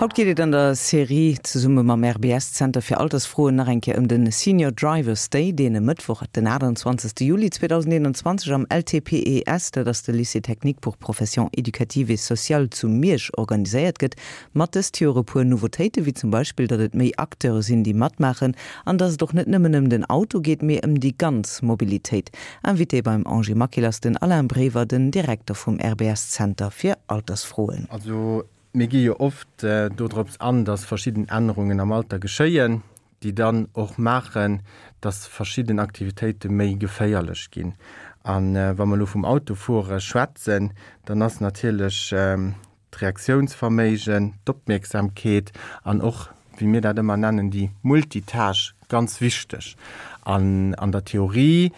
Haut geet et an der Serie zesumme mam RBS Zenter fir Altersfroen nach eng Kéier ëm de Senior Drivers Day, deen e Mëttwoch, den 28. Juli 2021 am LTPES, dat ass de Lycée technique pour professions éducatives et sociales zu Miersch organiséiert gëtt. Mat dëst Joer e puer Nouveautéiten, wéi zum Beispill, datt et méi Acteure sinn, déi matmaachen an datt et och net nëmmen ëm den Auto geet, mee ëm déi ganz Mobilitéit. Invité beim Angie Maquil ass den Alain Brever, den Direkter vum RBS Zenter fir Altersfroen. Also mir gi jo oft dodrops an, datt verschidden Ännerungen am Alter geschéien, déi dann och maachen, datt verschidden Aktivitéite méi geféierlech ginn. A wa mer elo vum Autofuere schwätzen, dann ass natierlech d'Reaktiounsverméigen, d'Opmierksamkeet an och, wéi mir dat ëmmer nennen, déi Multitâche ganz wichteg. An an der Theorie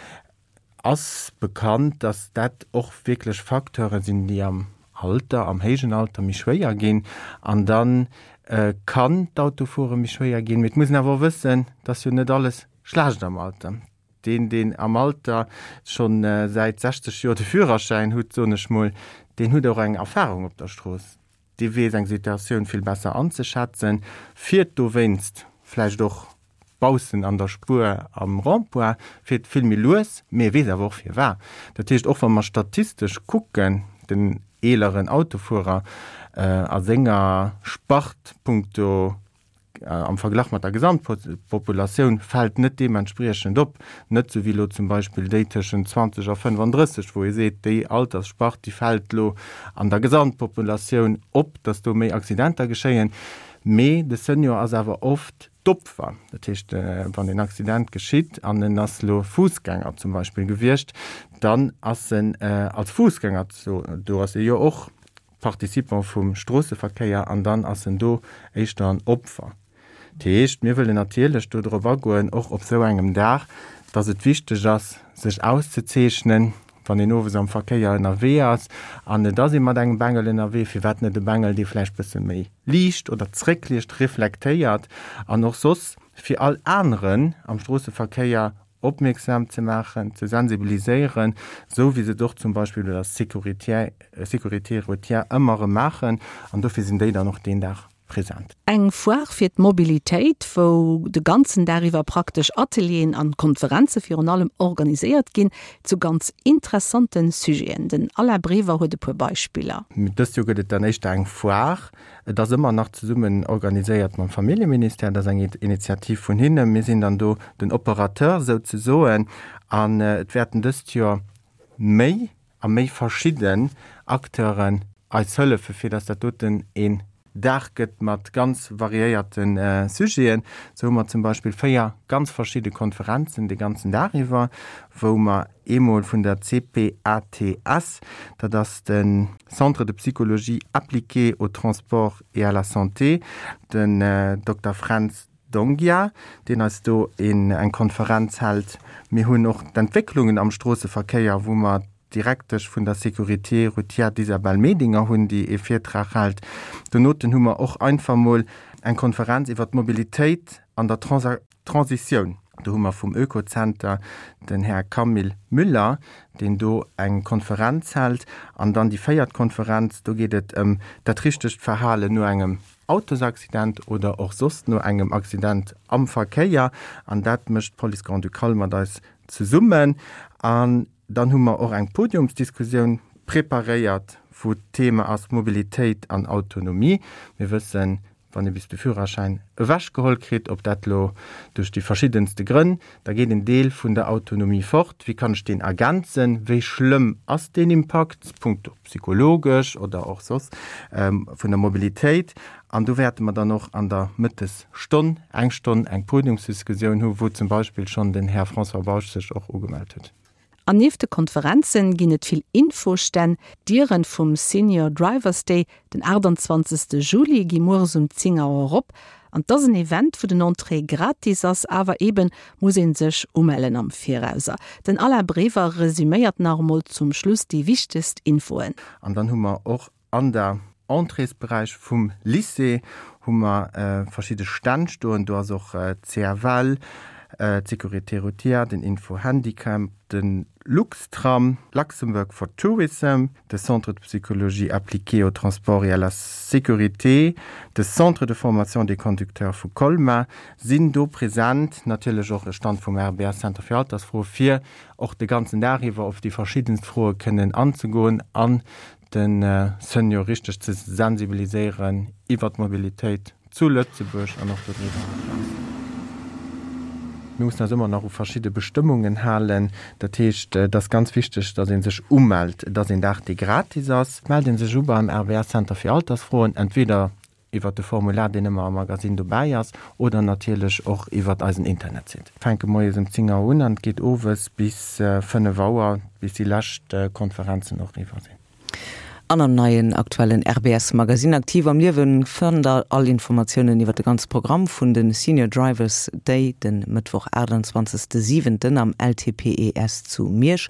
ass bekannt, dass dat och wierklech Facteure sinn, déi am Alter, am héijen Alter méi schwéier ginn. An da kann d'Autofuere méi schwéier ginn. Mee et muss een awer och wëssen, dass jo net alles schlecht am Alter. Deen, deen am Alter scho säit 60 Joer de Führerschäin hutt, soen ech mol, deen hutt och eng Erfahrung op der Strooss. Dee weess eng Situatioun vill besser anzeschätzen, fiert dowéinst vläicht och baussen an der Spuer am Rond-point, fiert vill méi lues, mee e weess awer och firwat. Dat heescht, och wa mer statistesch kucken, den eeleren Autofuerer a senger Spart punkto am Verglach mat der Gesamtpopulatioun fält net deementspriechend op, net sou wéi elo zum Beispill déi tëschent 20 a 35, wou ee seet, déi Altersspart, déi fält elo an der Gesamtpopulatioun op, datt do méi Accidenter geschéien. Mee de Senior ass awer oft d'Opfer. Dat heescht, wann een Accident geschitt an en ass elo Fussgänger zum Beispill gewiescht, dann ass en als Fussgänger, do ass e jo och Participant vum Stroosseverkéier an dann ass en do éischter en Opfer. Dat heescht, mir wëllen natierlech do drop agoen, och op esou engem Dag, dass et wichteg ass, sech auszezeechnen, wann een owes am Verkéier ënnerwee ass an et ass ee mat engem Bengel ënnerwee, firwat net e Bengel, dee vläicht bësse méi liicht oder zréckliicht, reflektéiert an och soss fir all aneren am Stroosseverkéier opmierksam ze maachen, ze sensibiliséieren, esou wéi se et och zum Beispill bei der Sécurité routière ëmmer erëm maachen. An dofir sinn déi dann och deen Dag present. Eng Foire fir d'Mobilitéit, wou de ganzen Dag iwwer praktesch Atelieren an Konferenze virun allem organiséiert ginn, zu ganz interessante Sujeten. Den Alain Brever huet e puer Beispiller. Dëst Joer gëtt et dann éischter eng Foire Et ass ëmmer nach zesummen organiséiert mam Familljeministère. Dat ass eng Initiativ vun hinnen. Mir sinn dann do den Operateur souzesoen. An et wäerten dëst Joer méi a méi verschidden Acteuren eis hëllefen, fir datt dat doten een Dag gëtt mat ganz variéierte Sujeten. Sou hu mer zum Beispill 4 ganz verschidde Konferenzen de ganzen Dag iwwer, wou mer eemol vun der CPATS, dat ass de Centre de psychologie appliquée au transport et à la santé, den Dokter Fränz Dongia, deen eis do eng Konferenz hält. Mir hunn och d'Entwécklungen am Stroosseverkéier, wou mer d'Direktesch vun der Sécurité routière, d'Isabelle Medinger, hunn, déi ee Virtrag hält. Donoten hu mer och einfach mol eng Konferenz iwwer d'Mobilitéit an der Transitioun. Do hu mer vum Oekozenter den Här Camille Müller, deen do eng Konferenz hält. An dann déi véiert Konferenz, do geet et ëm dat richtegt Verhalen no engem Autosaccident oder och soss no engem Accident am Verkéier. An dat mécht d'Police Grand-Ducale mat eis zesummen. An dann hu mer och eng Podiumsdiskussioun preparéiert, wou d'Thema ass Mobilitéit an Autonomie. Mir wëssen, Wann ee bis de Führerschäin ewechgeholl kritt, ob dat elo duerch déi verschiddenste Grënn, da geet en Deel vun der Autonomie fort. Wéi kann ech deen ergänzen? Wéi schlëmm ass deen Impakt, punkto psychologesch oder och soss, vun der Mobilitéit? An do wäerte mer dann och an der Mëttesstonn eng Stonn eng Podiumsdiskussioun hu wou zum Beispill schonn den Här François Bausch sech och ugemellt huet. An nieft de Konferenzen ginn et vill Infostänn. D'Dieren vum Senior Drivers Day den 28 Juli gi mueres um 10 Auer op. An 't ass en Event wou den Entrée gratis ass, awer eben muss een sech umellen am Virauser. Den Alain Brever resuméiert nach emol zum Schluss déi wichtegst Infoen. An dann hu mer och An der Entréesberäich vum Lycée hu mer verschidde Stänn stoen. Do ass och d'CFL, d'Sécurité routière, den Info Handicap, de. Luxtram, Luxembourg for Tourism, de Centre de psychologie appliquée au transport et à la sécurité, de Centre de formation des conducteurs vu Colmar sinn do present, natierlech och e Stand vum RBS Center fir Altersfroe fir och de ganzen Dag iwwer op déi verschiddenst Froe kënnen anzegoen an de Senior richteg ze sensibiliséieren iwwer d'Mobilitéit zu Lëtzebuerg an och dodriwwer eraus. Mir mussen eis ëmmer nach u verschidde Bestëmmungen halen. Dat heescht, et ass ganz wichteg, datt ee sech umellt. Et ass een Dag, dee gratis ass. Et mellt ee sech u beim RVS Center fir Altersfroen, entweder iwwert de Formular, deen ëmmer am Magasinn dobäi ass, oder natierlech och iwwert eisen Internetsite. Mir fänke moies ëm 10 Auer un an et geet owes bis 5 Auer, bis déi lescht Konferenzen och eriwwer sinn. An am neien aktuellen RBS Magazine Aktiv am Liewen fannt der all Informatiounen iwwer de ganze Programm vun de Senior Drivers Day den Mëttwoch 28 siwenten am LTPES zu Miersch.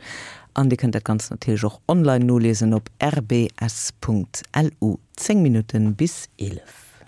An dir kënnt dat Ganzt natierlech och online noliesen op rbs.lu. 10 Minutten bis 11.